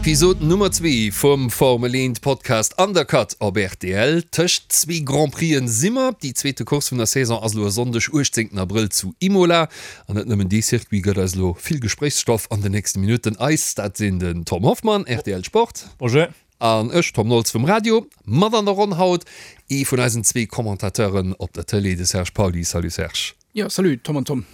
Episod Nummer zwee vum Formel 1 Podcast Undercut op rtl. Tëscht zwee Grand Prixen si mer. Déi zweete Course vun der Saison ass elo e Sonndeg, 18 Abrëll zu Imola. An net nëmmen dee Circuit gëtt eis elo vill Gespréichsstoff an den nächste Minutten. Eis, dat sinn den Tom Hoffmann, rtl Sport. Bonjour. An ech, Tom Nolz vum Radio. Mat an der Ronn haut ee vun eisen zwee Commentateuren op der Tëlee, de Serge Pauly. Salut Serge. Jo, salut Tom an Tom.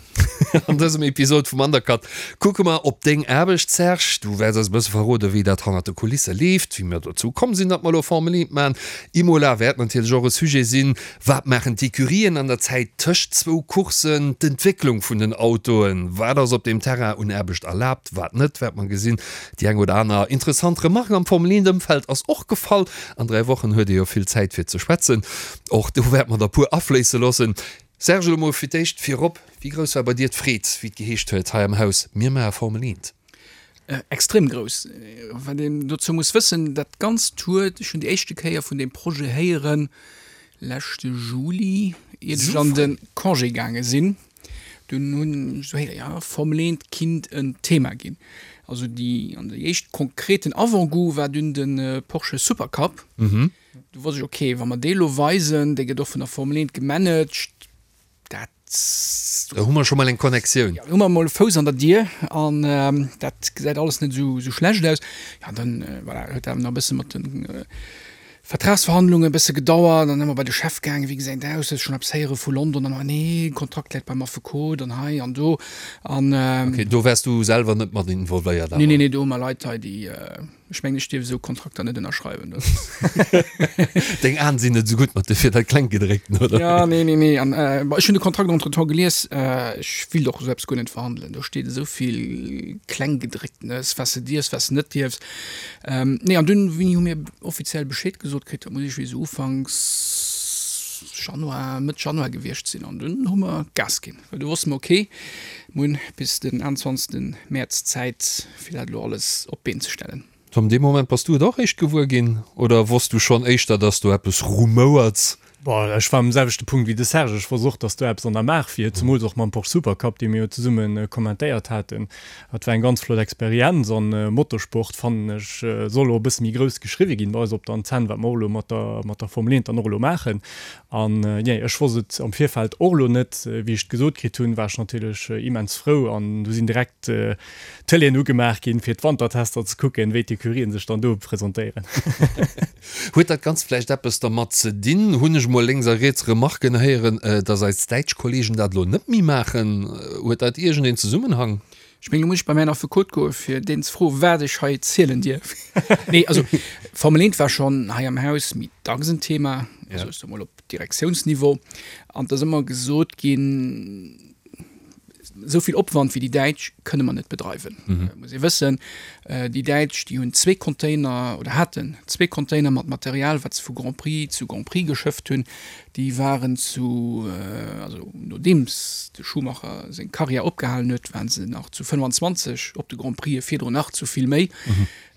An dësem Episod vum Undercut kucke mer op deng Aarbecht, Serge. Du wäerts eis e bësse verroden, wéi dat hannert de Kulisse leeft, wéi mir dozou komm sinn, datt mer elo Formel 1 maachen. Imola wäert natierlech och e Sujet sinn. Wat maachen d'Ecurien an der Zäit tëscht zwou Courssen? D'Entwécklung vun den Autoen, wat ass op deem Terrain un Aarbecht erlaabt, wat net, wäert mer gesinn. Déi eng oder aner interessant Remarque am Formel 1 Ëmfeld ass och gefall. An 3 Wochen huet ee jo vill Zäit fir ze schwätzen. Och do wäerte mer der puer afléisse loossen. Serge, elo mol fir d'éischt virop, Wéi grouss war bei dir d'Freed, wéi et geheescht huet hei am Haus, mir maache Formel 1? Extrem grouss. Wat een dozou muss wëssen, dat Ganzt huet, ech hunn déi éischte Kéier vun deem Projet héieren leschte Juli, iert ech an de Congé gaange sinn. Dunn hunn ech esou héieren, jo, Formel 1 kinnt en Thema ginn. Also déi, an déi éischt konkreten Avant-goût war dunn de Porsche Supercup. Du wosst ech, ok, wa mer dee lo weisen, dee gëtt och vun der Formel 1 gemanagt, dat. Da hu mer scho mol eng Connectioun. Jo, hu mer mol e Fouss an der Dier an dat gesäit alles net esou schlecht aus. Jo, an dann, voilà, huet dat nach e bësse mat de Vertragsverhandlungen e bësse gedauert. Dann ëmmer bei de Chef gaangen, wéi gesäit et aus, hues schonn eppes héiere vu London? An, nee, Kontrakt läit beim Affekot an hei an do an. Ok, do waars du selwer net mat involvéiert awer? Nee, nee, nee, do hu mer Leit hei, déi. Ech mengen, ech dierf esou Kontrakter net ënnerschreiwen. Deng Aen sinn net esou gutt mat de fir dat Klenggedréckten, oder? Ja, nee, nee, nee. An äh, ech hunn de Kontrakt entretemps gelies. Äh, ech wéilt och esou eppes guer net verhandelen. Do steet esou vill Klenggedrécktenes, wat s de dierfs, wat s de net dierfs. Ähm, nee, an dunn, wéini hu mir offiziell Bescheed gesot kritt? Dat muss iergendwéi esou ufanks Januar, Mëtt Januar gewiescht sinn. An dunn hu mer Gas ginn. Well du wosste mer, ok, mir hunn bis den 21. Mäerz Zäit, fir dat elo alles op d'Been ze stellen. Tom, dee Moment bass du et och réischt gewuer ginn oder wosst du schonn éischter, dass do eppes rumouert? Bon, ech war um selwechte Punkt wéi de Serge. Ech wosst och, dass do eppes an der Maach wier, zemools och mam Porsche Supercup, dee mir jo zesumme kommentéiert haten. Dat war eng ganz flott Experienz an Motorsport, fannen ech, soll och e bësse méi grouss geschriwwe ginn bei eis op der Antenn, wat mer och elo mat der, mat der Formel 1 dann och elo maachen. An jee, ech wosst et am Virfeld och elo net. Wéi ech et gesot kritt hunn, war ech natierlech immens frou an du sinn direkt d'Tëleeën ugemaach ginn, fir d'Wantertester ze kucken, wéi d'Ecurien sech dann do presentéieren. Huet dat Ganzt vläicht eppes dermat ze dinn, hunn ech mol lénks a riets Remarken héieren, dass eis däitsch Kollegen dat elo net méi maachen? Huet dat iergendeen Zesummenhang? Ech mengen, do muss ech bei mäin Affekot goen, fir deen ze froen, wat ech hei zielen dierf. Nee, also Formel 1 war schonn hei am Haus méi dacks en Thema, also ech soe mol op Direktiounsniveau. An et ass ëmmer gesot ginn, esou vill Opwand wéi déi Däitsch kënne mer net bedreiwen. Muss ee wëssen, déi Däitsch, déi hunn zwee Container oder haten zwee Container mat Material, wat se vu Grand Prix zu Grand Prix geschëfft hunn. Déi waren zu, also nodeems de Schumacher seng Karriär opgehalen huet, waren se nach zu 25 op de Grand Prixen, virdrun nach zu vill méi,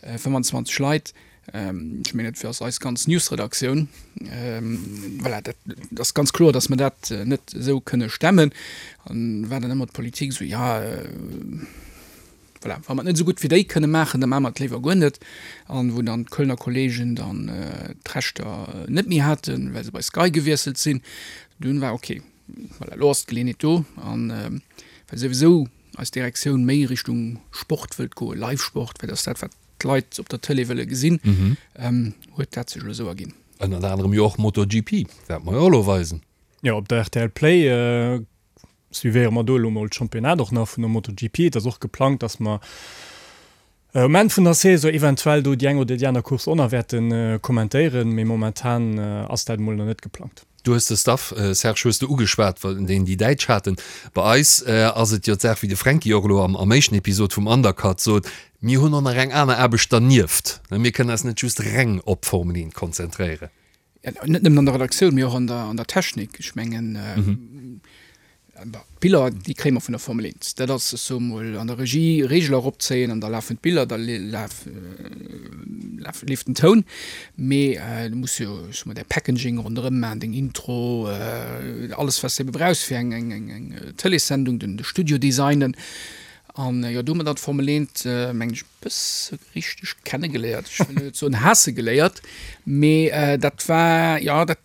25 Leit. Ech mengen, dat ass eis ganz Newsredaktioun. Voilà, dat ass ganz kloer, datt mer dat net esou kënne stemmen. An war dann ëmmer d'Politik esou, jo, Voilà, wa mer et net esou gutt wéi déi kënne maachen, da maache mer et léiwer guer net. An wou dann d'Kölner Kollegen dann d'Rechter net méi haten, well se bei Sky gewiesselt sinn, dunn war ok, voilà, elo ass d'Geleeënheet do. An well souwisou eis Direktioun méi Richtung Sport wëllt goen, Live-Sport, well dat ass dat, wat d'Leit op der Tëlee wëlle gesinn, huet dat sech elo esou erginn. Ënnert anerem jo och MotoGP, wäerte mer jo och elo weisen. Jo, op der rtl Play Suivéiere mer do elo mol d'Championnat och nach vun der MotoGP. Et ass och geplangt, dass mer um Enn vun der Saison eventuell do déi eng oder déi aner Course och nach wäerte kommentéieren, mee momentan ass dat emol nach net geplangt. Du hues de Staff, Serge, hues de ugeschwat, deen déi Däitsch haten. Bei eis ass et jo d'Saach, wéi de Fränki och elo am éischten Episod vum Undercut sot, mir hunn och nach eng aner Aarbecht dernieft. Mir kënnen eis net just reng op d'Formel 1 konzentréieren. Net nëmmen an der Redaktioun, mee och an der, an der Technik. Ech mengen, d'Biller, déi kréie mer vun der Formel 1. Dat ass, ech soe mol, an der Regie Reegel eropzéien an da lafen d'Biller, da laf, laf, leeft den Toun. Mee du muss jo, ech soe mol, däi Packaging ronderëm maachen, deng Intro, alles, wat s de ebe brauchs fir eng, eng, eng, eng Tëleessendung, den, de Studio designen. An jo, do hu mer dann d'Formel 1, mengen ech, e bësse richteg kennegeléiert. Ech wëll net soen haasse geléiert, mee dat war, jo, dat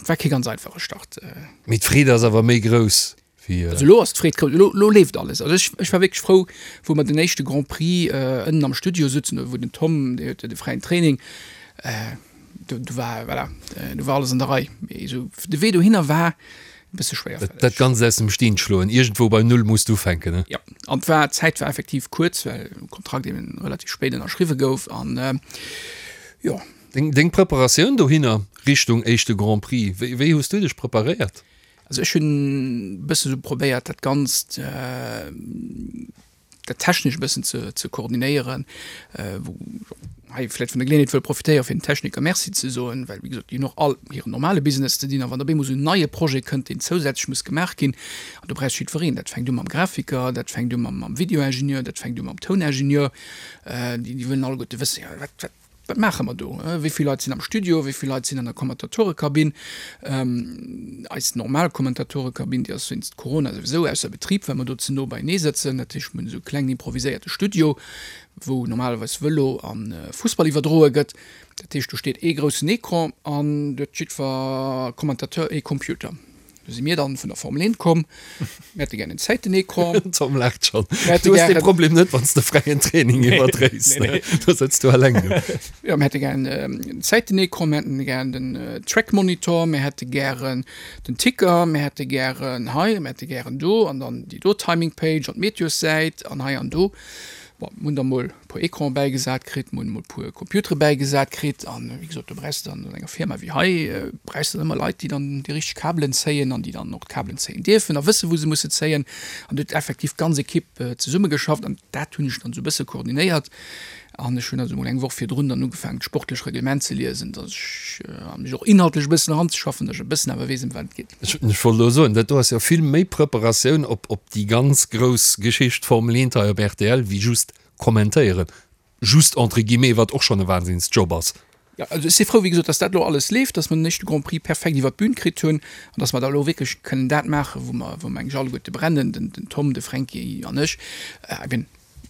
war kee ganz einfache Start. Mee d'Freed ass awer méi grouss wéi. Also elo ass d'Freed grouss, elo, elo leeft alles. Also ech, ech war wierklech frou, wou mer den éischte Grand Prix ënnen am Studio sutzen, wou den Tom, dee huet jo de fräien Training, do, do war, voilà, do war alles an der Rei. Mee esou de Wee dohinner war e bësse schwéierfälleg. Dat Ganzt aus dem Steen schloen, iergendwou bei Null muss d'ufänken, ne? Jo, an d'war, d'Zäit war effektiv kuerz, well de Kontrakt eben relativ spéit ënnerschriwwe gouf an jo. Deng, deng Preparatioun dohinner Richtung éischte Grand Prix, wéi, wéi hues du dech preparéiert? Also ech hunn e bësse sou probéiert dat Ganzt, dat technesch e bëssen ze, ze koordinéieren, wou hei vläicht vun der Geleeënheet wëll profitéieren, fir den Techniker Merci ze soen, well wéi gesot, déi hunn och all hiren normale Business ze dinn a wann op eemol esou en neie Projet kënnt, deen zousätzlech muss gemaach ginn, an do brauchst jiddwereen, dat fänkt u mam Grafiker, dat fänkt u mam, mam Videoingenieur, dat fänkt u mam Touningenieur, déi, déi wëllen alleguerte wëssen, jo wat, wat, Wat maache mer do? Wéi vill Leit sinn am Studio? Wéi vill Leit sinn an der Kommentatorekabinn? Eis normal Kommentatorekabinn, déi ass wéinst Corona souwisou ausser Betrib, well mer do ze no beienee sëtzen. Dat heescht, mir hunn esou e klengen improviséierte Studio, wou normalerweis Vëlo a Fussball iwwerdroe gëtt. Dat heescht, do steet ee groussen Ecran an do huet jiddwer Kommentateur ee Computer. Do si mir dann vun der Formel 1 komm. Mir hätte gär en Zäitenecran. Den Tom laacht schonn. Du hues dee Problem net, wann s de fräien Training iwwerdréis. Nee, nee. Do sëtz du eleng do. Jo, mir hätte gär en Zäitenecran, mir hätten gär den Trackmonitor, mir hätte gären den Ticker, mir hätte gären hei, mir hätte gären do an dann déi do Timing Page an d'Meteossäit an hei an do. Bon, mir hunn da mol e puer Ecrane bäigesat kritt, mir hunn emol e puer Computere bäigesat kritt an, wéi gesot, do brauchs de dann an enger Firma wéi hei, brauchs de dann ëmmer Leit, déi dann déi richteg Kabelen zéien an déi dann och d'Kabelen zéien dierfen a wëssen, wou se musse zéien. An do huet effektiv d'ganz Ekipp zesummegeschafft an dat hunn ech dann esou e bësse koordinéiert. An ech hunn also emol eng Woch virdrun dann ugefaangen, d'sportlech Reglement ze liesen, datt ech, a mech och inhaltlech e bëssen eranzeschaffen, datt ech e bëssen awer weess, ëm wat et geet. Ech wollt elo soen, dat do ass jo vill méi Preparatioun op op déi ganz grouss Geschicht Formel 1 hei op rtl wéi just kommentéieren. Just entre guillemets, wat och schonn e Wahnsinnsjob ass. Jo, also ech si frou, wéi gesot, dass dat elo alles leeft, dass mer den éischte Grand Prix perfekt iwwert d'Bün kritt hunn an dass mer da elo wierklech kënnen dat maachen, wou mer, wou mer eigentlech alleguerte brennen, den Tom, de Fränki an ech, eben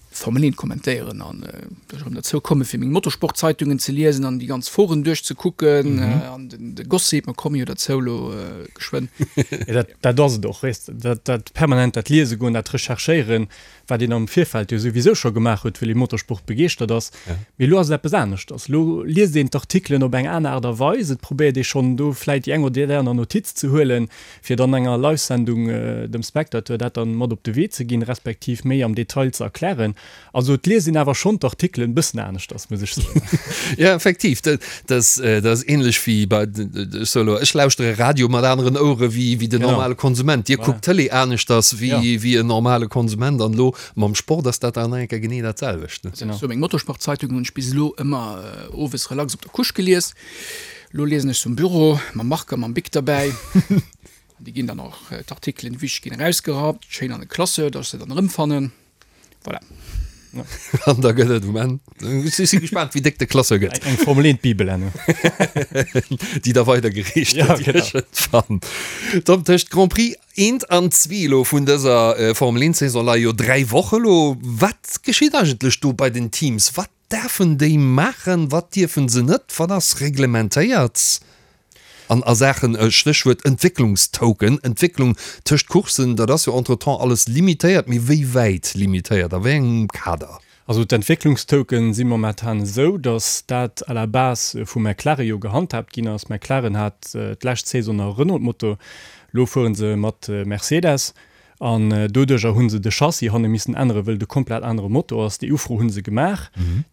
Formel 1 kommentéieren an dass ech erëm derzou komme fir meng Motorsportzeitungen ze liesen an déi ganz Foren duerchzekucken an den de Gossip, mer komme jo derzou elo geschwënn. Jo, dat, dat ass et och, weess de, dat, dat permanent dat Liese goen, dat Recherchéieren, wat een am Virfeld jo souwisou scho gemaach huet, well ee Motorsport begeeschtert ass. Mee elo ass et eppes aneschters. Elo liest een d'Artikelen op eng aner Aart a Weis, et probéiert ee schonn do vläit déi eng oder déi aner Notiz ze huelen, fir dann enger Live-Sendung dem Spectateur dat dann mat op de Wee ze ginn, respektiv méi am Detail ze erklären. Also et liest een awer schonn d'Artikelen e bëssen aneschters, muss ech soen. Jo, effektiv, dat ass ähnlech wéi bei, ech soe elo, ech lauschtere Radio mat aneren Ouere wéi den normale Konsument. Dir kuckt d'Tëlee aneschters wéi en normale Konsument an elo mam Sport ass dat dann nach eng Kéier genee dat selwecht. Sou meng Motorsportzeitung hunn ech bis elo ëmmer owes relax op der Couche gelies. Lo liesen ech se um Büro, mam Marker, mam Bic derbäi. An déi ginn dann och, d'Artikelen, déi wichteg ginn erausgerappt, schéin an e Classeur, dass ech se dann erëmfannen. Voilà. An da gëtt et um Enn, ech si gespaant, wéi déck de Classeur gëtt. Eng Formel 1 Bibel herno. Déi da weidergereecht gëtt iergendwann. Tom, tëscht Grand Prix eent an zwee elo vun dëser Formel 1 Saison leie jo 3 Woche lo. Wat geschitt eigentlech do bei den Teams? Wat Däerfen déi maachen? Wat dierfe se net? Wat ass reglementéiert an a Saachen, Stéchwuert Entwécklungstoken, Entwécklung tëscht Courssen, dat ass jo entretemps alles limitéiert, mee wéi wäit limitéiert, a wéi engem Kader? Also d'Entwécklungstoken si momentan esou, datt dat à la base vu McLaren jo gehandhaabt ginn ass. McLaren hat d'lescht Saison nach e Renault-Motor, elo fuere se mat Mercedes. An doduercher hu se de Chassis hanne missen änneren, wëll et e komplett anere Motor ass. Déi Ufro hu se gemaach,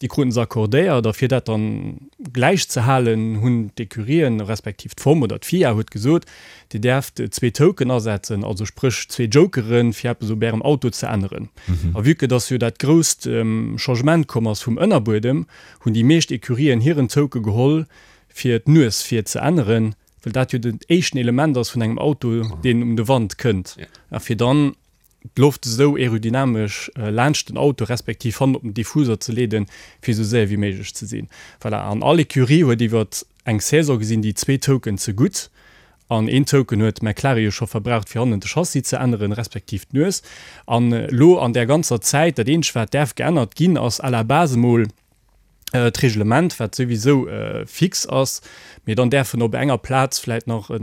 déi kruten se accordéiert. A fir dat dann gläich ze halen, hunn d'Ecurien, respektiv d'FOM oder d'FIA huet gesot, Dir däerft zwee Token asetzen, also spréch zwee Jokeren, fir eppes op Ärem Auto ze änneren. A vue que dass jo dat grousst Changement komm ass vum Ënnerbuedem, hunn déi meescht Ecurien hiren Toke geholl, fir d'Nues vir ze änneren. well dat jo den éischten Element ass vun engem Auto, deen um de Wand kënnt, a fir dann d'Loft esou aerodynamesch laanscht den Auto respektiv hannen op den Diffuser ze leeden, fir esou séier wéi méiglech ze sinn. Voilà, an all Ecurie huet iwwer eng Saison gesinn déi zwee Token ze gutt. An een Token huet McLaren jo scho verbraucht, fir hannen de Chassis ze änneren, respektiv d'Nues. An elo an där ganzer Zäit, dat eenzegt wat däerf geännert ginn, ass à la base emol d'Reglement, wat souwisou fix ass, mee dann däerfen op enger Plaz vläit nach e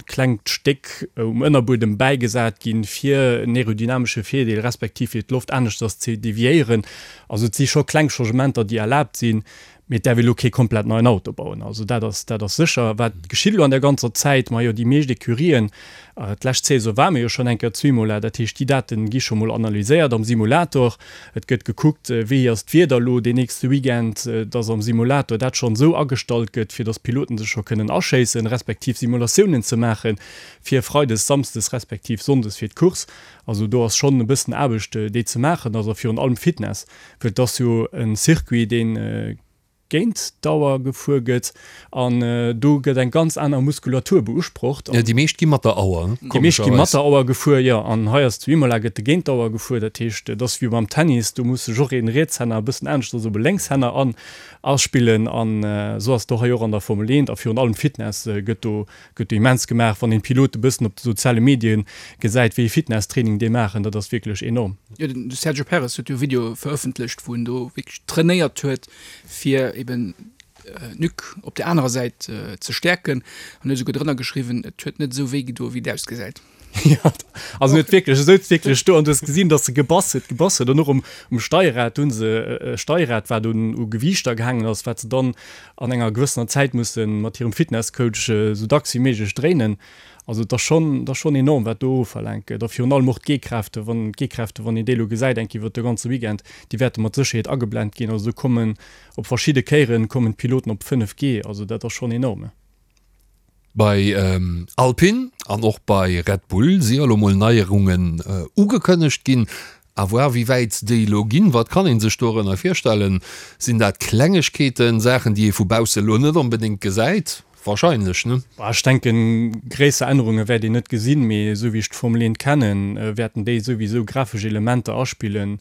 klengt Stéck um Ënnerbuedem bäigesat ginn, fir en aerodynamesche Virdeel, respektiv fir d'Loft aneschters ze deviéieren. Also et si scho kleng Changementer, déi erlaabt sinn, Mee et däerf ee lo kee komplett neien Auto bauen, also dat ass, dat ass sécher. Wat geschitt elo an der ganzer Zäit? Majo, déi meescht Ecurien, d'lescht Saison ware mir jo schonn eng Kéier zu Imola, dat heescht, déi Date gi scho mol analyséiert am Simulator. Et gëtt gekuckt, wéi ass d'Wieder elo deen nächste Weekend, dass am Simulator dat schonn esou agestallt gëtt, fir dass d'Piloten sech scho kënnen aschéissen, respektiv Simulatiounen ze maache fir freides, samsdes respektiv sonndes fir d'Course. Also do ass schonn e bëssen Aarbecht, déi ze maachen ass a virun allem Fitness. Well et ass jo e Circuit, dee géint d'Auer gefuer gëtt an do gëtt eng ganz aner Muskulatur beusprocht. Jo, déi meescht gi mat der Auer, Déi meescht gi mat der Auer gefuer, jo. An hei ass zu Imola gëtt de géint d'Auer gefuer. Dat heescht, et ass wéi beim Tennis, do muss sech och een Rietshänner e bëssen aneschters op e Lénkshänner an aspillen. An esou ass et och hei och an der Formel 1 a virun allem Fitness gëtt do Gëtt immens gemaach, wann een d'Pilote bëssen op de soziale Medien gesäit, wéi ee Fitnesstraining déi maachen, dat ass wierklech enorm. Jo, de Sergio Perez huet jo e Video verëffentlecht, wou en do wierklech trainéiert huet, fir eben d'Nuque op der anerer Säit ze stäerken an huet esouguer drënner geschriwwen, et huet net esou wéi gedoen, wéi et ausgesäit. Jo, also en huet wierklech, e souz wierklech do an du hues gesinn, datt e gebass huet, gebass huet an och um, um Steierrad, do hu se e Steierrad, wat un u Gewiichter gehaangen ass, wat se dann an enger gewëssener Zäit musse mat hirem Fitnesscoach esou dacks wéi méiglech dréinen. Also et ass schonn, et ass schonn enorm, wat do ofverlaangt gëtt a virun allem och d'G-Kräfte, wann d'G-Kräfte, wann een déi elo gesäit eng Kéier iwwert de ganze Weekend, déi wäerte mat Sécherheet ageblent ginn. Also do kommen op verschidde Kéieren kommen d'Piloten op 5 G, also dat ass schonn enorm. Bei Alpine an och bei Red Bull si elo mol Neierungen ugekënnegt ginn. À voir wéi wäit déi elo ginn. Wat kann ee sech dorënner virstellen? Sinn dat Klengegkeeten, Saachen déi ee vu bausse elo net onbedéngt gesäit? Wahrscheinlech, ne? Ech denken, gréisser Ännerunge wäert een net gesinn, mee esou wéi ech d'Formel 1 kennen, wäerten déi souwisou grafesch Elementer aspillen,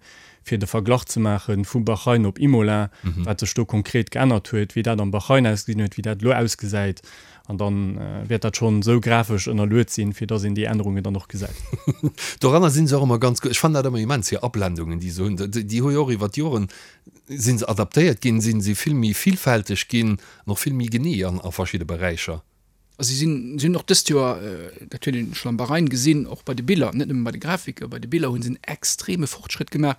fir de Verglach ze maache vu Bahrain op Imola, wat sech do konkret geännert huet, wéi dat am Bahrain ausgesinn huet, wéi dat elo ausgesäit. An da wäert dat schonn esou grafesch ënnerluet sinn, fir dass een déi Ännerungen dann och gesäit. Doranner si se och ëmmer ganz gutt. Ech fannen dat ëmmer immens, hir Ablendungen, déi se hunn. Déi hu jo och iwwer d'Joren, si se adaptéiert ginn, si si vill méi villfälteg ginn an och vill méi genee a verschidde Beräicher. A si sinn, si hunn och dëst Joer, dat huet een schonn am Bahrain gesinn, och bei de Biller, net nëmme bei de Grafike, bei de Biller hu se en extreme Fortschrëtt gemaach.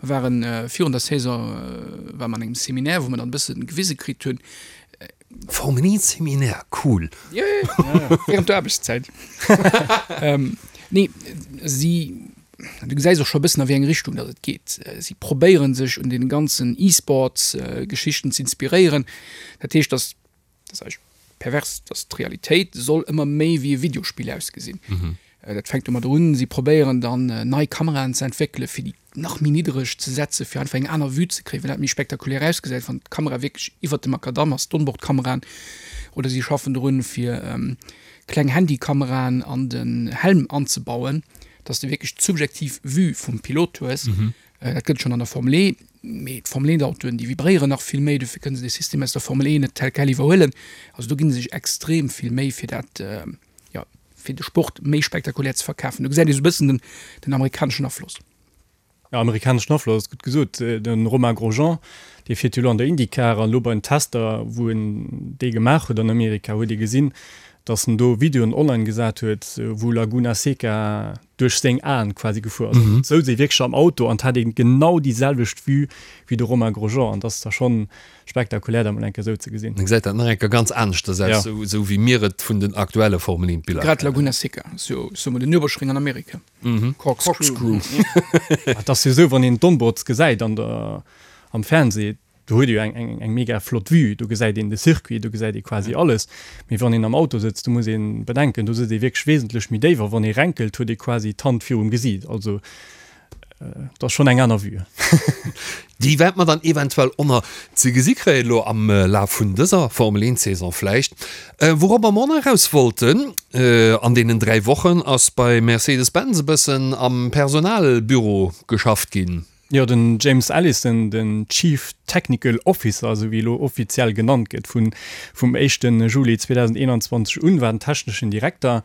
Mer ware virun der Saison, ware mer an engem Seminaire, wou mer dann e bësse gewise kritt hunn. Formel 1 Seminaire, cool! Jo, jo, jo, während der Aarbechtszäit. Nee, si, du gesäis och scho e bëssen a wéi eng Richtung datt et geet. Si probéiere sech un deene ganzen E-Sports-Geschichten z'inspiréieren. Dat heescht, datt Dat ass eigentlech pervers, dass d'Realitéit soll ëmmer méi wéi e Videospill ausgesinn. Dat fänkt domadder un, si probéieren dann nei Kameraen ze entwéckelen, fir déi nach méi niddereg ze setzen, fir einfach eng aner Vue ze kréien, well dat méi spektakulär ausgesäit, wann d'Kamera wierklech iwwert dem Makadamm ass, d'Onboardkameraen. Oder si schaffen drun, fir kleng Handykameraen an den Helm anzebauen, dass de wierklech d'subjektiv Vue vum Pilot hues. Dat gëtt et schonn an der Formel E, mee d'Formel 1 Autoen, déi vibréieren nach vill méi, dofir kënne se de System aus der Formel E net tel quel iwwerhuelen. Also do gi se sech extrem vill Méi fir dat, jo, fir de Sport méi spektakulär ze verkafen. Do gesäit ee sou e bëssen den, den amerikaneschen Afloss. Jo, amerikaneschen Afloss ass gutt gesot. De Romain Grosjean, dee fiert jo elo an der IndyCar an elo bei den Tester, wou en déi gemaach huet an Amerika, huet ee gesinn, datt en do Videoen online gesat huet, wou Laguna Seca duerch seng Aen quasi gefuer ass. Et souz ee wierklech am Auto an et hat ee genau déi selwecht Vue wéi de Romain Grosjean an dat ass da schonn spektakulär dat mol eng Kéier esou ze gesinn. Da gesäit dat nach eng Kéier ganz aneschters aus, esou esou wéi mir et vun den aktuelle Formel 1 Biller Grad kennen. Laguna Seca ass jo, soe mer, den Nürburgring an Amerika. Corkscrew. Et ass jo esou, wann een d'Onboards gesäit an der, am Fernseh, Do huet ee jo eng mega flott Vue, do gesäit een de Circuit, do gesäit ee quasi alles. Mee wann een am Auto sëtzt, do muss ee bedenken, do sëtzt ee wierklech wesentlech méi déif a wann ee renkelt, huet ee quasi d'Hand virum Gesiit. Also et ass schonn eng aner Vue. Déi wäerte mer dann eventuell och nach ze gesi kréien, elo am Laf vun dëser Formel 1 Saison vläicht. Wouropper mer och nach eraus wollten, an deenen 3 Wochen ass bei Mercedes-Benz e bëssen am Personalbüro geschafft ginn. Jo, den James Allison, den Chief. Technical Officer, esou wéi elo offiziell genannt gëtt, vun vum éischte Juli 2021 un, war den techneschen Direkter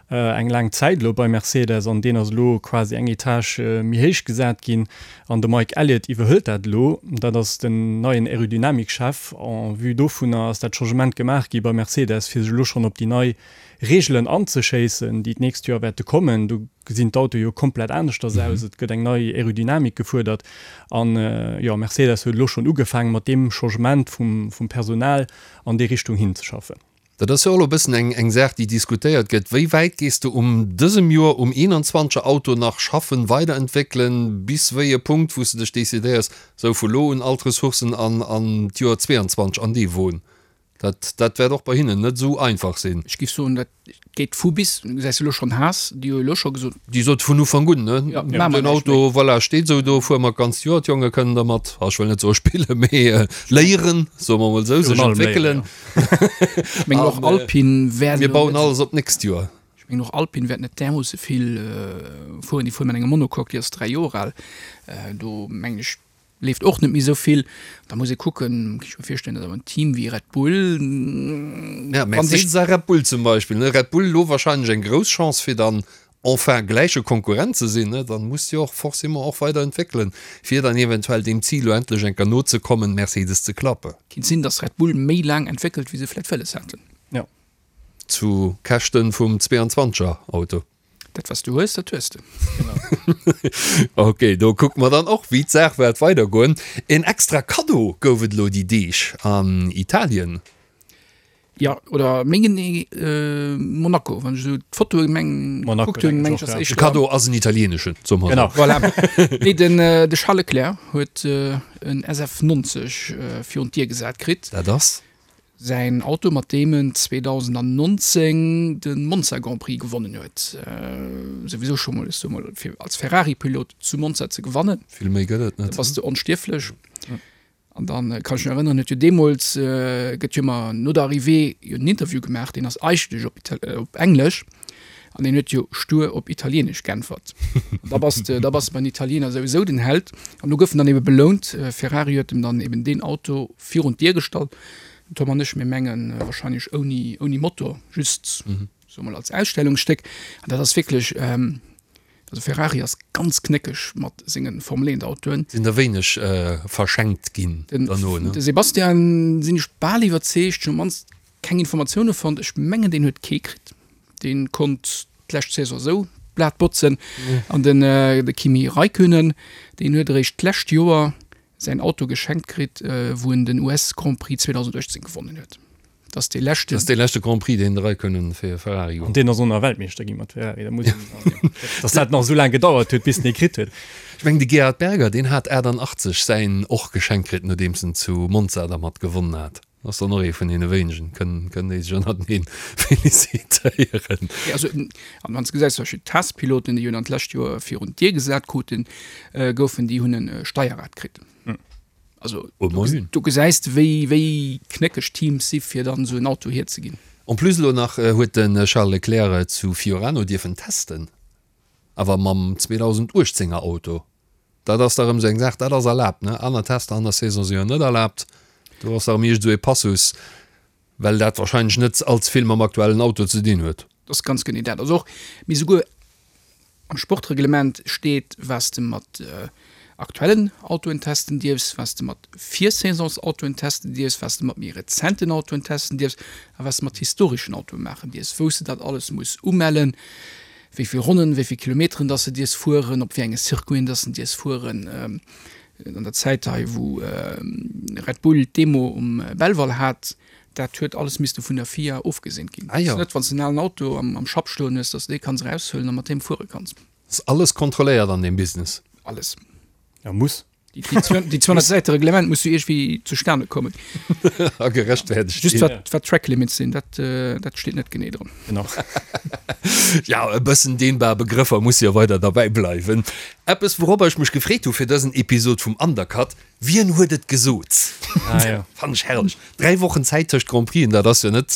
eng laang Zäit elo bei Mercedes an deen ass elo quasi eng Etage méi héich gesat ginn an de Mike Elliott iwwerhëlt dat elo. Dat ass den neien Aerodynamik-Chef. En vue dovunner ass dat Changement gemaach gi bei Mercedes, fir sech elo schonn op déi nei Reegelen anzeschéissen, déi d'nächst Joer wäerte kommen. Do gesinn d'Autoe jo komplett aneschters aus, et gëtt eng nei Aerodynamik gefuerdert an jo, Mercedes huet elo schonn ugefaangen, mat deem Changement vum vum Personal an déi Richtung hinzeschaffen. Dat ass jo och elo e bëssen eng eng Saach, déi diskutéiert gëtt, Wéi wäit gees de um dësem Joer um 21er Auto nach schaffen, weiderentwéckelen, bis wéi e Punkt, wou s de dech decidéiers, sou vu lo un all d'Ressourcen an an d'Joer 22 an dee Won? Dat, dat wäert och bei hinnen net esou einfach sinn. Ech géif soen, dat geet vu bis. Du gesäis elo schonn Haas, déi hu elo scho gesot. Déi sot vun Ufank un, ne? Ja, maache mer Den Auto, voilà, steet esou do, fuere mer d'ganzt Joer, d'Jonge kënnen dermat, ah, ech wëll net soe spillen, mee léieren, soe mer emol esou, sech entwéckelen. Ech mengen och Alpine wäert Mir bauen alles op d'nächst Joer. Ech mengen och Alpine wäert net därmoosse vill fueren. Déi fuere mat engem Monocoque, déi ass 3 Joer al. Do mengen ech, Leeft och net méi esou vill. Da muss ee kucken, kann ech mir virstellen, datt awer en Team wéi Red Bull, Ja, Mercedes a Red Bull zum Beispill, ne? Red Bull elo wahrscheinlech eng grouss Chance fir dann enfin gläiche Konkurrent ze sinn, ne? Dann muss jo och forcément och weider entwéckelen, fir dann eventuell deem Zil elo endlech eng Kéier nozekommen, Mercedes ze klappen. Kinnt sinn, datt Red Bull méi laang entwéckelt, wéi se vläit wëlles haten. Jo. Zu Käschten vum 22 er Auto. Dat was du hues, dat hues de. Ok, do kucke mer dann och wéi d'Saach wäert weidergoen. En extra Kaddo gouf et elo déi Deeg an Italien. Jo, oder méi genee Monaco, wann ech esou d'Fotoe meng gekuckt hunn, meng ech ass éischter. De Kaddo ass en italieneschen, soe mer esou. Genau, voilà. Nee, den de Charles Leclerc huet en SF90 virun d'Dier gesat kritt. Dat ass? Säin Auto, mat deem en 2019 de Monza Grand Prix gewonnen huet. Souwisou scho mol, ech soe mol, fir als Ferrari-Pilot zu Monza ze gewannen. Vill méi gëtt et net. Da bass de onstierflech. An dann kann ech mech erënneren, huet jo deemools, gëtt jo ëmmer no der Arrivée jo en Interview gemaach, deen ass eigentlech op op Englesch an deen huet jo stur op Italieenesch geäntwert. An da bass de, da bass de beim Italiener souwisou den Held. An do gouf en dann ebe belount. Ferrari huet em dann eben deen Auto virun d'Dier gestallt. Den Tom an ech, mir mengen wahrscheinlech ouni, ouni Motor, just soe mol als Ausstellungsstéck. An dat ass wierklech, also Ferrari ass ganz knéckeg mat senge Formel 1 Autoen. Sinn der wéineg verschenkt ginn derno, ne? De Sebastian sinn ech bal iwwerzeegt, ech hunn op mannst keng Informatioune fonnt, ech mengen deen huet kee kritt, dee konnt d'lescht Saison esou d'Blat botzen. An den de Kimi Räikkönen, deen huet eréischt d'lescht Joer säin Auto geschenkt kritt, wou en den US Grand Prix 2018 gewonnen huet. Dat ass dee leschten. Dat ass dee leschte Grand Prix, deen de Räikkönen fir Ferrari An deen ass och nach Weltmeeschter gi mat Ferrari. Da muss een, datt dat nach esou laang gedauert huet, bis en ee kritt huet. Ech mengen, de Gerhard Berger, deen hat 88 säin och geschenkt kritt, nodeems en zu Monza dermat gewonnen hat. Ass dann och ee vun deene wéinegen, kënnen, kënnen déi sech ënnerteneen felicitéieren. Jo, also, an wann s de gesäis, zum Beispill d'Haas-Piloten, déi jo dann d'lescht Joer virun d'Dier gesat kruten, goufen, déi hunn e Steierrad kritt. Also, do gesäis de, wéi, wéi knéckeg d'Teams si fir dann esou en Auto hierzeginn. En plus elo nach huet de Charles Leclerc zu Fiorano dierfen testen, awer mam 2018 er Auto. Dat ass da rëm esou eng Saach, dat ass erlaabt, ne? Aner Tester an der Saison si jo net erlaabt. Do ass da rëm iergend esou ee Passus, well dat wahrscheinlech net allze vill mam aktuellen Auto ze dinn huet. Dat ass ganz genee dat. Also och, mee souguer am Sportreglement steet, wat s de mat aktuellen Autoen testen dierfs, wat s de mat Virsaisonsautoen testen dierfs, wat s de mat méi rezenten Autoen testen dierfs a wat s de mat historeschen Autoe maachen dierfs, wou s de dat alles muss umellen. wéi vill Ronnen, wéi vill Kilometeren dass de dierfs fueren, op wéi enge Circuiten dass de dierfs fueren. An der Zäit hei, wou Red Bull d'Demo um Belval hat, dat huet alles misste vun der FIA ofgeseent ginn. Ah jo. Net wann s de en alen Auto am Schapp stoen hues, dass de dee kanns eraushuelen a mat deem fuere kanns. Ass alles kontrolléiert an deem Business? Alles. Ja, muss. Déi 200 Säite Reglement muss jo iergendwéi zustane kommen. A gerechtfertegt Just wat, wat Track Limits sinn, dat, dat steet net genee dran. Genau. Ja, e bëssen dehnbar Begrëffer musse jo weider derbäi bleiwen. Eppes, wouropper ech mech gefreet hu fir dësen Episod vum Undercut. Wien huet et gesot? Ah, ja. Fannen ech herrlech. 3 Wochen Zäit tëscht Grand Prixen, dat ass jo net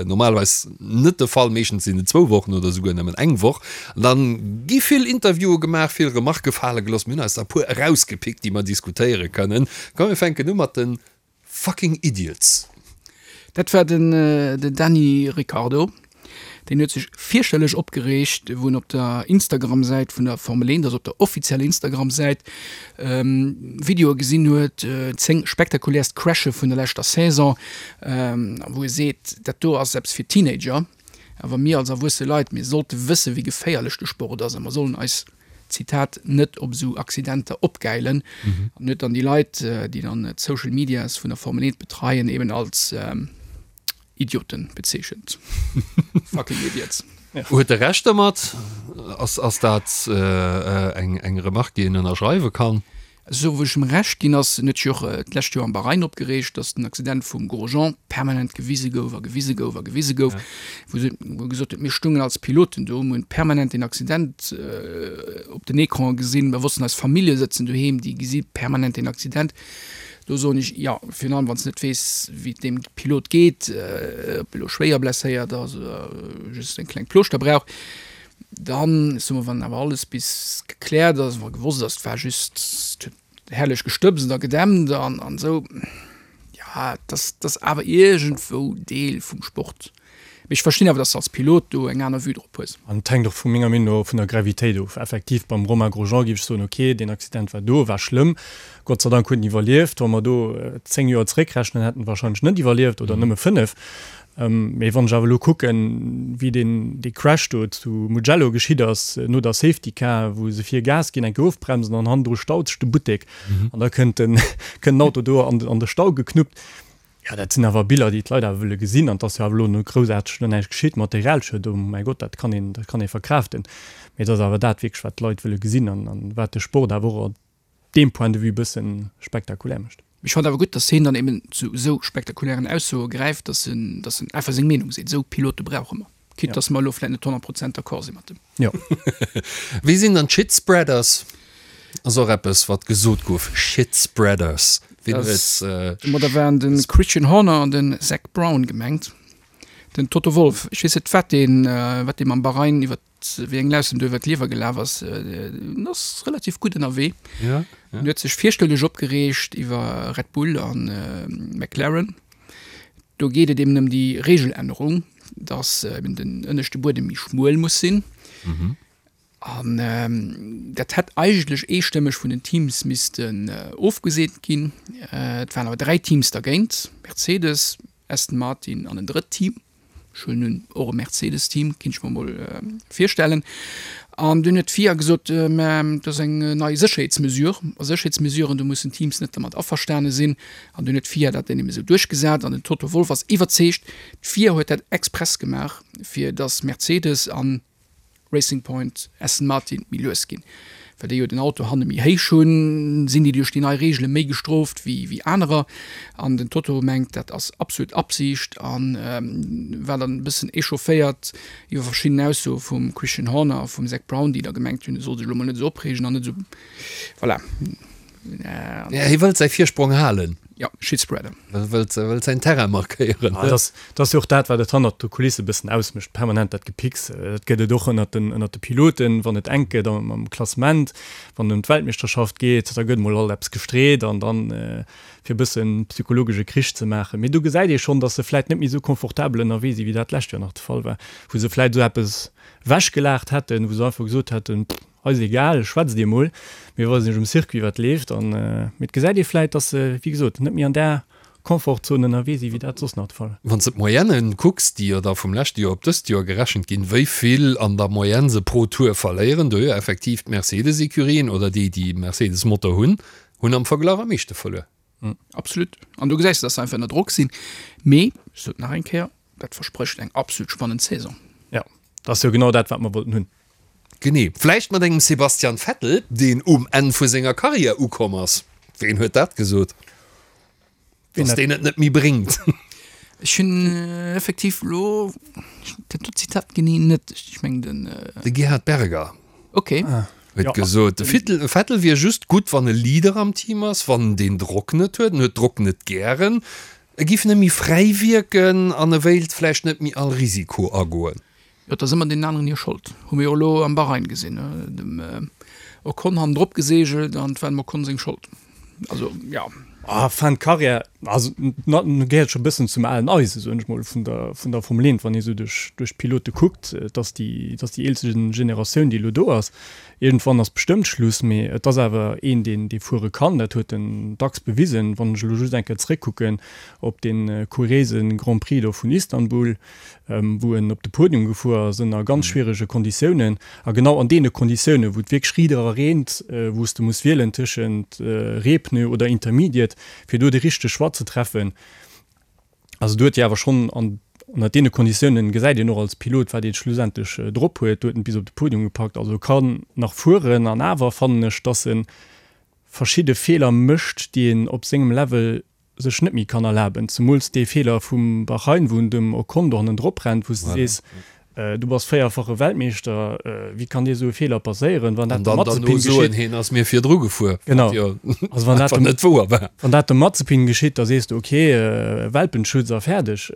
normalerweis net de Fall. Meeschtens sinn et zwou Wochen oder souguer nëmmen eng Woch. An dann gi vill Interviewe gemaach, vill Remarke fale gelooss. Mir hunn eis der e puer erausgepickt, déi mer diskutéiere kënnen. Komm mir fänken u mat de Fucking Idiots. Dat war den Dany Ricciardo. Deen huet sech fierchterlech opgereegt, wou en op der Instagram-Säit vun der Formel 1, also op der offizieller Instagram-Säit, Videoe gesinn huet, 10 spektakuläerst Crashe vun der leschter Saison, wou e seet, dat do ass eppes fir Teenager, awer mir als erwuesse Leit, mir sollte wësse wéi geféierlech de Sport ass a mer sollen eis, Zitat, net op esou Accidenter opgäilen. An huet dann déi Leit, déi dann d'Social Medias vun der Formel 1 betreien, eben als Idioten bezeechent. Fucking idiots. Huet e Recht dermat? Ass, ass dat eng, eng Remarque, déi een ënnerschreiwe kann? Esou wou ech em Recht ginn ass, en huet sech jo och d'lescht Joer am Bahrain opgereegt, datt den Accident vum Grosjean permanent gewise gouf a gewise gouf a gewise gouf, wou se, wou e gesot huet, mir stungen als Piloten do, mir hunn permanent deen Accident op den Ecranen gesinn, mir wossten, eis Famillje sëtzen doheem, déi gesi permanent deen Accident. Do soen ech, jo, virun allem wann s de net weess, wéi et deem Pilot geet, ob e lo schwéier blesséiert ass oder just eng kleng Plooschter brauch. Dann, ech soe mol, wann awer alles bis gekläert ass, wa gewosst ass, et war just, et huet herrlech gestëbst a gedämpt an esou, jo, dat ass awer iergendwou Deel vum Sport. Mee ech verstinn awer, dass de als Pilot do eng aner Vue drop hues. An et hänkt och vu menger Meenung no vun der Gravitéit of. Effektiv, beim Romain Grosjean géif ech soen, ok, deen Accident war do, war schlëmm, Gott sei Dank huet en iwwerlieft. Wa mer do 10 Joer zeréckrechnen, hätt en wahrscheinlech net iwwerlieft oder nëmme 5. Mee wann ech awer elo kucken, wéi deen dee Crash do zu Mugello geschitt ass, no der Safety Car, wou se vir Gas ginn, eng Kéier ofbremsen an hannendru staut sech de Buttek an da kënnt den kënnt den Auto do an de Stau geknuppt. Jo, dat sinn awer Biller, déi d'Leit awer wëlle gesinn. An et ass jo awer elo no groussaarteg no näischt geschitt. Materialschued, oh mäi Gott, dat kann een, dat kann ee verkraaften. Mee et ass awer dat wierklech, wat d'Leit wëlle gesinn an, an wat de Sport awer och op deem Point de vue e bësse spektakulär mécht. Ech fannen awer gutt, dass hien dann eben zu esou spektakulären Aussoe gräift, dass en, dass en einfach seng Meenung seet. Esou Pilote brauche mer. Quitte dass mer elo vläit net 100 Prozent d'accord si mat em. Jo. Wie sinn dann d'Shitspreaders? Ass och eppes, wat gesot gouf, Shitspreaders. Wien huet. Domadder waren de Christian Horner an den Zak Brown gemengt. Den Toto Wolff, ech weess net, wat deen, wat dee mam Bahrain iwwer, wéi eng Laus em do iwwer d'Liewer gelaf ass. En ass relativ gutt ënnerwee. Ja, ja. En huet sech fierchterlech opgereegt iwwer Red Bull a McLaren. Do geet et eben ëm déi Regelännerung, dass eben den ënneschte Buedem méi schmuel muss sinn. An dat hätt eigentlech eestëmmeg vun den Teams missten ofgeseent ginn. Et waren awer 3 Teams dergéint, Mercedes, Aston Martin an en drëtt Team. Ech huelen un, och e Mercedes-Team, kinnt ech mer mol virstellen. An dunn huet d'FIA gesot, mä dat ass eng nei Sécherheetsmesure. A Sécherheetsmesuren, do mussen d'Teams net dermat averstane sinn. An dunn huet d'FIA dat dann eben esou duerchgesat. An den Toto Wolff ass iwwerzeegt, d'FIA huet dat express gemaach, fir datt Mercedes an Racing Point, Aston Martin méi lues ginn. Well déi jo den Auto hanne méi héich hunn, sinn déi duerch déi nei Reegele méi gestrooft wéi wéi anerer. An den Toto mengt, dat ass absolut Absicht a war dann e bëssen echaufféiert iwwer verschidden Aussoe vum Christian Horner a vum Zak Brown, déi da gemengt hunn, e soll sech elo mol net esou opreegen an net esou, voilà. Ja, hie wëllt säi Virsprong halen. Ja, Shitspreader. Wëllt, wëllt säin Terrain markéieren. Ah, dat ass, dat ass jo och dat, wat et hannert de Kulisse e bëssen ausmécht, permanent dat Gepicks. Dat gëtt et och ënnert den, ënnert de Piloten, wann et enk gëtt am, am Klassement, wann et ëm d'Weltmeeschterschaft geet, da gëtt mol alt eppes gestreet an dann, fir e bëssen psychologesche Krich ze maachen. Mee do gesäit ee schonn, datt se vläit net méi esou confortabel ënnerwee sinn, wéi dat d'lescht Joer nach de Fall war, wou se vläit esou eppes wechgelaacht hätten, wou se einfach gesot hätten, pff, Eis egal, schwätzt dir mol, mir weisen iech um Circuit wat leeft an mee et gesäit ee vläit dass se wéi gesot net méi an där Confortzone ënnerwee si wéi dat soss nach de Fall. Wann s de d'Moyennen kucks, déi jo da vum leschte Joer op dëst Joer gerechent ginn, wéi vill an der Moyenne se pro Tour verléieren, do jo effektiv d'Mercedes-Ecurien oder déi, déi Mercedes-Motor hunn, hunn am Verglach am meeschte verluer. Absolut. An do gesäis de, dass se einfach ënner Drock sinn. Mee, ech sot nach eng Kéier, dat versprécht eng absolut spannend Saison. Jo, dat ass jo genau dat, wat mer wollten hunn. Genee. Vläicht mat engem Sebastian Vettel, deen um Enn vu senger Karriär ukomm ass. Ween huet dat gesot? Dass deen et net méi bréngt. Ech hunn effektiv elo dat do Zitat genee net. Ech mengen den. De Gerhard Berger. Ok. Huet gesot, de Vettel wier just gutt, wann e Leader am Team ass, wann en deen Drock net huet. En huet Drock net gären. E giff net méi fräi wierken an e wéilt vläicht net méi all Risiko agoen. Jo, et ass ëmmer deenen aneren hir Schold. Hu mir jo elo am Bahrain gesinn, dem Ocon hannendrop geseegelt an et war dem Ocon seng Schold. Also, jo. Ah, Fin de carrière, also na, gehéiert scho e bëssen zum alen Eisen, soen ech mol, vun der, vun der Formel 1, wann ee sou duerch, duerch d'Pilote kuckt. Et ass déi, et ass déi eelste Generatioun, déi elo do ass. Iergendwann ass bestëmmt Schluss, mee et ass awer een, deen, dee fuere kann. Dat huet en dacks bewisen. Wann ech elo just eng Kéier zeréckkucken op dee kuriéise Grand Prix do vun Istanbul, wou en op de Podium gefuer ass ënner ganz schwierege Konditiounen a genau an deene Konditiounen, wou et wierklech rieder a reent, wou s de muss wielen tëschent Reepneu oder Intermediate, fir do de richtege Choix ze treffen. Also do huet hie awer schonn an ënner deene Konditiounen gesäit een och als Pilot, wat ee schlussendlech drop huet. Do huet en et bis op de Podium gepackt. Also e kann nach fueren an awer fannen ech, dass e verschidde Feeler mécht, déi een op sengem Level sech net méi kann erlaben, zemools dee Feeler vum Bahrain, wou en dem Ocon do hannendrop rennt, wou s de sees, du bass véierfache Weltmeeschter, wéi kann dir esou e Feeler passéieren? Wann dat dem Mazepin geschitt, hien ass mir virdru gefuer, genau, also wann dat dem, net wouer war. Wann dat dem Mazepin geschitt, da sees de okay, Welpenschutz a fäerdeg.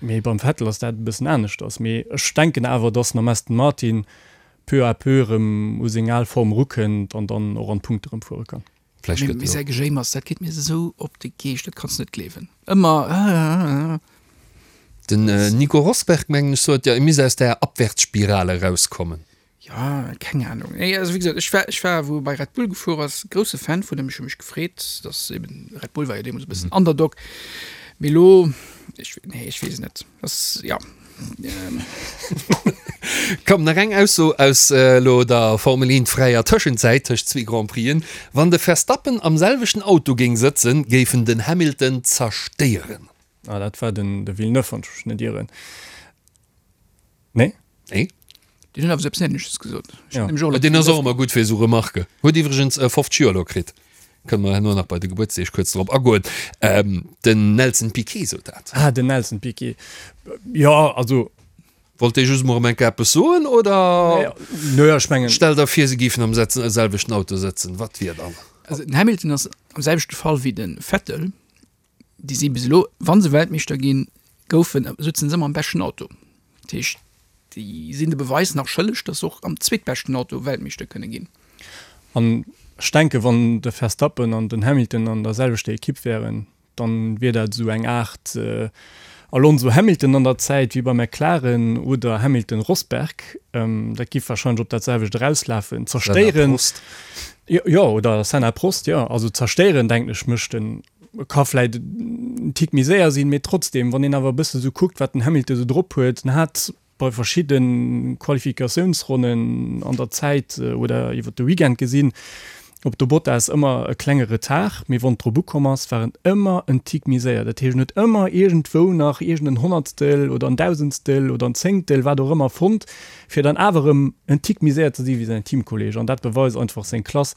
Mee beim Vettel ass dat e bëssen aneschters. Mee ech denken awer, datt en am Aston Martin peu à peu erëm u seng al Form erukënnt an dann och an d'Punkte erëm fuere kann. Vläicht gëtt jo. Säi Gejéimers, dat geet mir esou op de Geescht, dat kanns de net gleewen. Ëmmer. Den Nico Rosberg, mengen ech, sot jo, e misst aus där Abwärtsspirale erauskommen. Jo, keng Ahnung. Nee, also wéi gesot, ech war, ech war, wou e bei Red Bull gefuer ass, grousse Fan vun him. Ech hu mech gefreet, dass eben, Red Bull war jo deemools e bëssen Underdog. Mee elo, ech, nee, ech weess et net. Ass, ja. Komm, nach eng Ausso aus elo der Formel 1 fräier Tëschenzäit tëscht zwee Grand Prixen, Wann de Verstappen am selwechten Auto géing sëtzen, géif en den Hamilton zerstéieren. Ah, dat war den de Villeneuve, wann ech mech net ieren. Nee? Nee. Deen huet awer sou eppes Ähnleches gesot. Ech hunn nämlech och elo Deen ass och ëmmer gutt fir esou Remarken. Huet iwwregens 50 Joer elo kritt. Kënne mer herno nach bei de Gebuertsdeeg kuerz drop agoen. Den Nelson Piquet sot dat. Ah, den Nelson Piquet. Jo, also. Wollt dee just emol erëm eng Kéier eppes soen, oder? Nö, ech mengen. Stell der vir, se géifen am selwechten Auto sëtzen, wat wier dann? Also den Hamilton ass am selwechte Fall wéi de Vettel. Déi si bis elo, wa se Weltmeeschter ginn, goufen, sutzen se ëmmer am beschten Auto. Dat heescht, déi sinn de Beweis nach schëlleg, datt se och am zweetbeschten Auto Weltmeeschter kënne ginn. An ech denken, wann de Verstappen an den Hamilton an der selwechter Ekipp wären, dann wier dat esou eng Aart Alonso-Hamilton an der Zäit wéi bei McLaren oder Hamilton-Rosberg. Dat giff wahrscheinlech op dat selwecht erauslafen. Zerstéieren. Jo, oder Senna-Prost, jo. Also zerstéieren, denken ech, mécht en Ka vläit en Tick méi séier sinn, mee trotzdem, wann een awer e bësse sou kuckt, wat den Hamilton sou drop huet, en hat bei verschidde Qualifikatiounsronnen an der Zäit oder iwwer de Weekend gesinn, op de Bottas ëmmer e klenge Retard, mee wann et drop ukomm ass, war en ëmmer en Tick méi séier. Dat heescht, en huet ëmmer iergendwou nach iergend en Honnertstel oder en Dausendstel oder en Zéngtel, wat och ëmmer, fonnt, fir dann awer erëm en Tick méi séier ze si wéi säin Teamkolleeg. An dat beweist einfach seng Klass.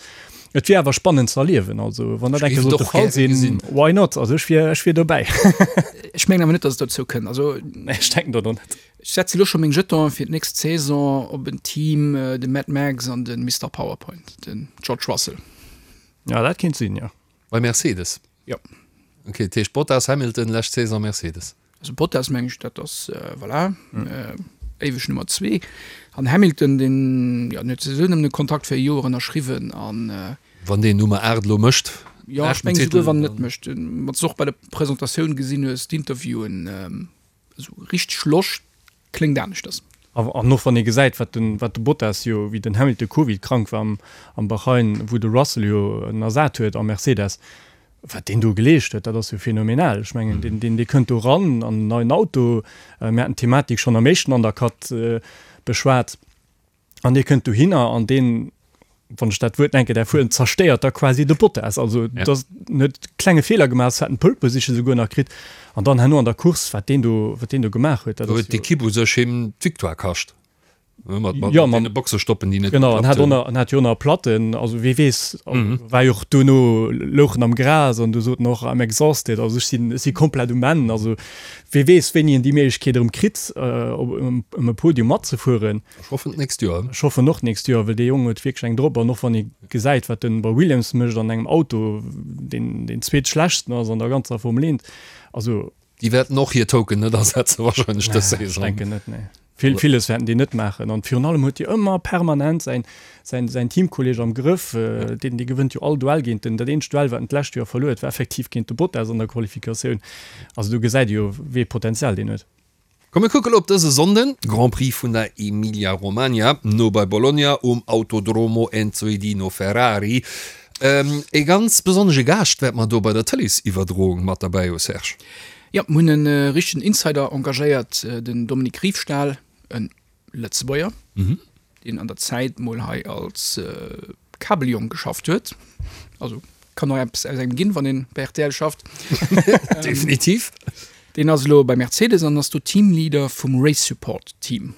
Et wier awer spannend ze erliewen, also wann dat eng Kéier sollt de Fall sinn, why not? Also ech wier, ech wier dobäi. Ech mengen awer net, datt et dozou kënnt. Also Nee, ech denken dat och net. Ech setze lo scho meng Jetonen fir d'nächst Saison op en Team, de Mad Max an de Mister Powerpoint, den George Russell. Ja, dat kéint sinn, jo. Bei Mercedes? Jo. Ok, dat heescht Bottas, Hamilton, lescht Saison Mercedes. Also Bottas meng ech, dat ass voilà, éiweg Nummer zwee. An Hamilton, deen, jo, deen huet souwisou nëmmen e Kontrakt fir e Joer ënnerschriwwen an. Wann deen Nummer 8 elo mécht, Jo, ech mengen esouguer wann en net mécht. Wann s de och bei der Presentatioun gesinn hues, d'Interviewen, esou richteg Loscht Kléngt aneschters. An och wann ee gesäit, wat den, wat de Bottas jo, wéi den Hamilton Covid-krank war am, am Bahrain, wou de Russell jo en ersat huet am Mercedes, wat deen do geleescht huet, dat ass jo phänomenal. Ech mengen, deen, deen, dee kënnt do ran an en neien Auto. Mir haten d'Thematik schonn am éischten Undercut beschwat. An dee kënnt dohinner an deen, wann ech dat Wuert enke däerf huelen, zerstéiert da quasi de Bottas. Also ja. dat huet klenge Feeler gemaach, hat en Pole Position souguer nach kritt. An dann herno an der Course, wat deen do, wat deen do gemaach huet. Dat huet d'Ekipp u sech him d'Victoire kascht. Mat, mat, ja, mat Boxestoppen, déi net genau, an hat och an hat jo nach Platten, also wee weess, mhm. war jo och duerno louch en am Gras an du sot en och I'm exhausted, also ech sinn ech si komplett um Enn, also wee weess wéini en déi Méiglechkeet erëm kritt äh, op um, um e Podium matzefueren. Ech hoffen d'nächst Joer. Ech hoffen och d'nächst Joer, well dee Jong huet wierklech eng drop an och wann ee gesäit wat en bei Williams mécht an engem Auto deen deen zweetschlechtsten ass an der ganzer Formel 1, also Déi wäerten och hir Token net asetzen wahrscheinlech dës Saison. Ech denken net, nee. Vill, villes wäerten déi net maachen. An virun allem huet hie ëmmer permanent säin, säin, säin Teamkolleeg am Grëff. Deen, dee gewënnt jo all Duell géint en. Dat eenzegt Duell, wat en d'lescht Joer verluer huet, war effektiv géint de Bottas an der Qualifikatioun. Also do gesäit ee jo, wéi ee Potenzial deen huet. Komm mir kucke lo op dëse Sonnden, Grand Prix vun der Emilia Romagna, no bei Bologna um Autodromo Enzo e Dino Ferrari. Ee ganz besonnesche Gaascht wäert mer do bei der Tëleesiwwerdroung mat derbäi hu, Serge. Jo, mir hunn e richtegen Insider engagéiert, den Dominique Riefstahl, e Lëtzebuerger, deen an der Zäit mol hei als Kabeljong geschafft huet. Also kann och eppes aus engem ginn, wann een bei rtl schafft. Definitiv. Deen ass elo bei Mercedes an ass do Teamleader vum Race Support Team.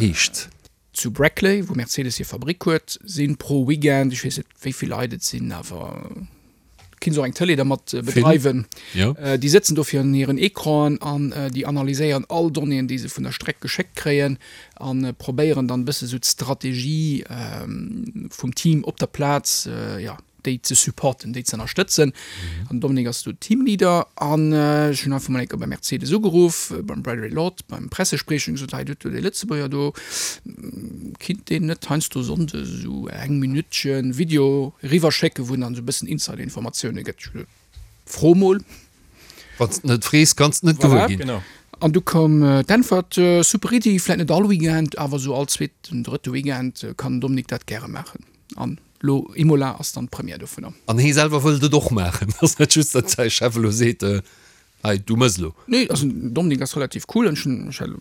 Heescht? Zu Brackley, wou Mercedes hir Fabrick huet, si pro Weekend, ech weess net wéi vill Leit et sinn, awer kinns och eng Tëlee dermat bedreiwen. Déi sëtzen do virun hiren Ecranen an déi analyséieren all Donnéeën, déi se vun der Streck geschéckt kréien a probéieren dann e bësse sou d'Strategie vum Team op der Plaz, jo, déi ze supporten, déi ze ënnerstëtzen. An den Dominique ass do Teamleader an ech hunn einfach mol eng Kéier bei Mercedes ugeruff, beim Bradley Lord, beim Pressespriecher, hunn gesot, hei do hutt Der dee Lëtzebuerger do, kinnt deen net heiansdo Sonndes esou eng Minuttchen Video eriwwerschécken, wou en dann esou e bëssen Insider-Informatioune gëtt. Ech hu gesot, fro mol. Wann s de net frees, kanns de net gewuer ginn. Voilà. An du koum d'Äntwert, super Iddi, vläit net all Weekend, awer esou all zweeten, drëtte Weekend kann den Dominique dat gäre maachen. An Lo Imola ass dann d'Première dovunner. An hee selwer wëllt et och maachen. Ass net just, datt säi Chef elo seet, hei, du mëss elo. Nee, also den Dominik ass relativ cool an ech hunn, ech hat elo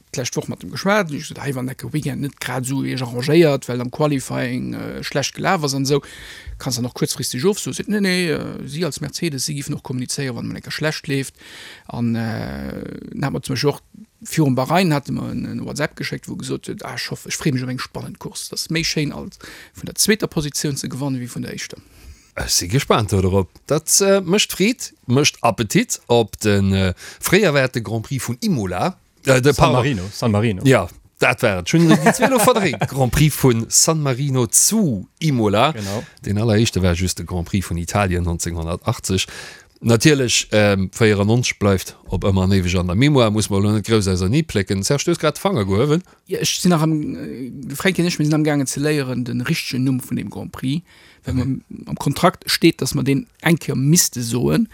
d'lescht Woch mat em geschwat an ech gesot, hei wann enke Weekend net grad esou iech arrangéiert, well am Qualifying schlecht gelaf ass an esou, kanns dann och kuerzfristeg ofsoen. Seet, nee, nee, si als Mercedes, si giffen och kommunizéieren, wann emol eng Kéier schlecht leeft. An dann hat mer zum Beispill och virum Bahrain hate mer en WhatsApp geschéckt, wou e gesot huet, ah ech hoffen, ech freeë mech op eng spannend Course, et ass méi schéin als vun der zweeter Positioun ze gewannen, wéi vun der éischter. Ech si gespaant dodrop. Dat mécht Freed, mécht Appetit op de fréi erwaarte Grand Prix vun Imola. De San Marino, San Marino. Ja, dat war et. Ech hunn déi zwee elo verdréint. Grand Prix vu San Marino zu Imola. Genau. Deen alleréischte war just de Grand Prix vun Italien 1980. Natierlech, 94 bleift op ëmmer an éiweg an der Mémoire, muss mer elo net grouss ausernee plécken. Serge, du hues grad de Fanger gehuewen. Jo, ech sinn nach am, de Fränki an ech, mir sinn amgaangen ze léieren de richtegen Numm vun deem Grand Prix, well mer am Kontrakt steet, datt mer deen eng Kéier misste soen.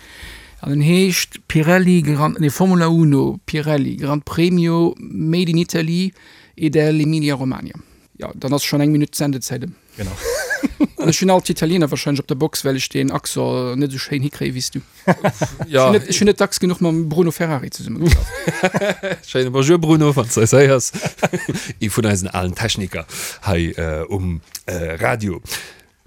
An en heescht Pirelli Gran, nee, Formula Uno Pirelli Gran Premio Made in Italy e dell'Emilia Romagna. Jo, dann ass schonn eng Minutt Sendezäit ëm. Genau. An ech hunn alt d'Italiener wahrscheinlech op der Box, well ech deen Accent net esou schéin hikréie wéi s du. Ja. Ech hunn net, ech hunn net dacks genuch mam Bruno Ferrari zesummegeschafft. Schéine Bonjour Bruno, wann s de eis héiers. Ee vun eisen alen Techniker hei um Radio.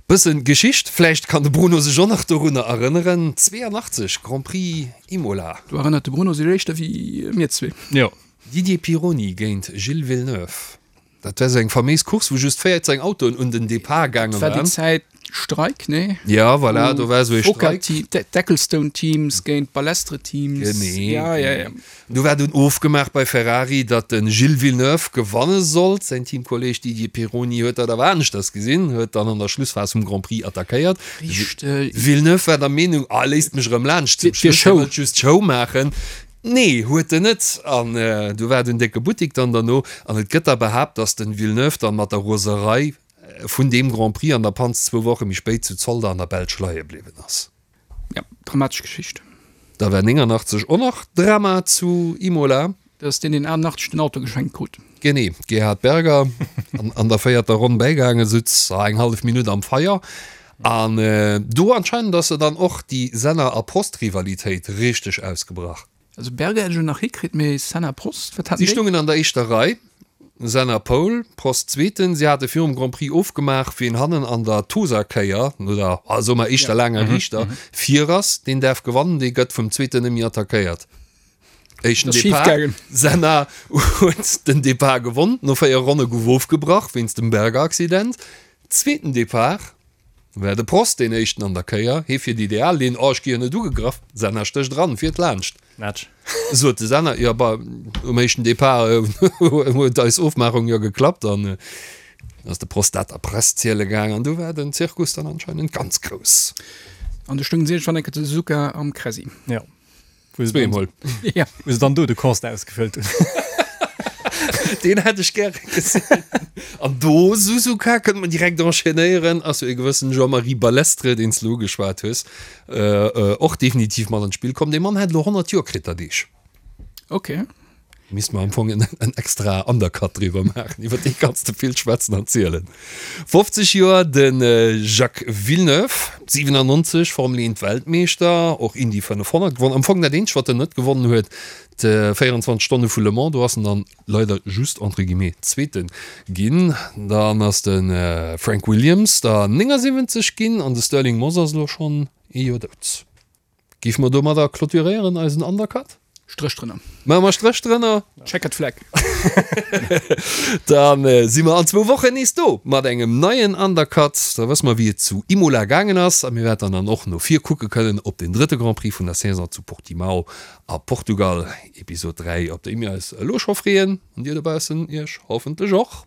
Bëssen Geschicht, vläicht kann de Bruno sech och nach dorunner erënneren, 82, Grand Prix Imola. Do erënnert de Bruno sech éischter wéi mir zwee. Jo. Didier Pironi géint Gilles Villeneuve. Dat war sou eng faméis Course, wou just 14 Autoen un den Depart gaange waren. Dat war déi Zäit Streik, nee? Ja, voilà, do war sou ee Streik. D'Ecclestone-Teams géint d'Balestre-Teams. Genee. Ja, ja, ja. Do war dunn ofgemaach bei Ferrari, datt de Gilles Villeneuve gewanne sollt. Säin Teamkolleeg Didier Pironi huet dat awer aneschters gesinn, huet dann an der Schlussphas vum Grand Prix attackéiert. Richteg. Villeneuve war der Meenung, ah, léisst mech erëm laanscht zum Schluss, hie wëllt just Show maachen. Nee, huet en net. An du war den décke Buttik dann derno. An et gëtt da behaapt, datt den Villeneuve dann mat der Roserei vun deem Grand Prix an der Panz zwou Woche méi spéit zu Zolder an der Belsch leie bliwwen ass. Ja, dramatesch Geschicht. Da war 89 och nach Drama zu Imola. Dat ass deen, deen 88 den Auto geschenkt krut. Genee, Gerhard Berger an der véierter Ronn bäigaangen, sutz eng hallef Minutt am Feier. An do anscheinend ass se dann och déi Senna a Prost-Rivalitéit richteg ausgebrach. Also Berger hätt ech elo nach hikritt, mee Senna, Prost, wat haten Si déi? stungen an der éischter Rei, Senna Pole, Prost Zweeten. Si hate virum Grand Prix ofgemaach, wien hannen an der Tosa-Kéier, no der, soe mer, éischter laanger Riichter, vir ass, deen däerf gewannen, dee gëtt vum Zweeten net méi attackéiert. Éischten Depart, Senna huet den Depart gewonn, no 4 Ronne gouf ofgebrach wéinst dem Berger-Accident. Zweeten Depart war de Prost deen éischten an der Kéier, hee fiert ideal Linn, oh ech gi jo net ugegraff, Senna stécht eran, fiert laanscht. Match. Sot de Senna, jo bah, um éischten Depart huet eis Ofmaachung jo geklappt an ass de Prost dat der Press ziele gaang an du war den Zirkus dann anscheinend ganz grouss. An du stoungen si iergendwann eng Kéier zu Suzuka am Kressi. Jo. Zweemol. Ja. Wou se dann do de Constat ausgefëllt hunn. Deen hätt ech gäre gesinn. An do, Suzuka, kënnt mer direkt enchaînéieren, ass jo e gewëssen Jean-Marie Balestre, deen s de elo ugeschwat hues, och definitiv mat an d'Spill komm. Dee Mann hätt elo 100 Joer kritt der Deeg. Ok. Misst mer am Fong en en extra Undercut driwwer maachen, iwwer dee kanns de vill schwätzen an zielen. 50 Joer de Jacques Villeneuve, 97 Formel 1 Weltmeeschter, och Indy 500 gewonnen. Am Fong dat eenzegt wat en net gewonnen huet, d'24 Stonne vu Le Mans, do ass en dann leider just entre guillemets Zweete ginn. Dann ass de Frank Williams der 79 ginn an de Stirling Moss ass elo schonn ee Joer dout. Géife mer domadder clôturéieren eisen Undercut? Stréch drënner. Maache mer Stréch drënner. Checkered flag. Da si mer an zwou Wochen nees do mat engem neien Undercut. Da wësse mer, wéi et zu Imola gaangen ass a mir wäerten dann och no vir kucke kënnen op den drëtte Grand Prix vun der Saison zu Portimao a Portugal, Episod 3, op déi mir eis elo scho freeën an dir dobaussen iech hoffentlech och.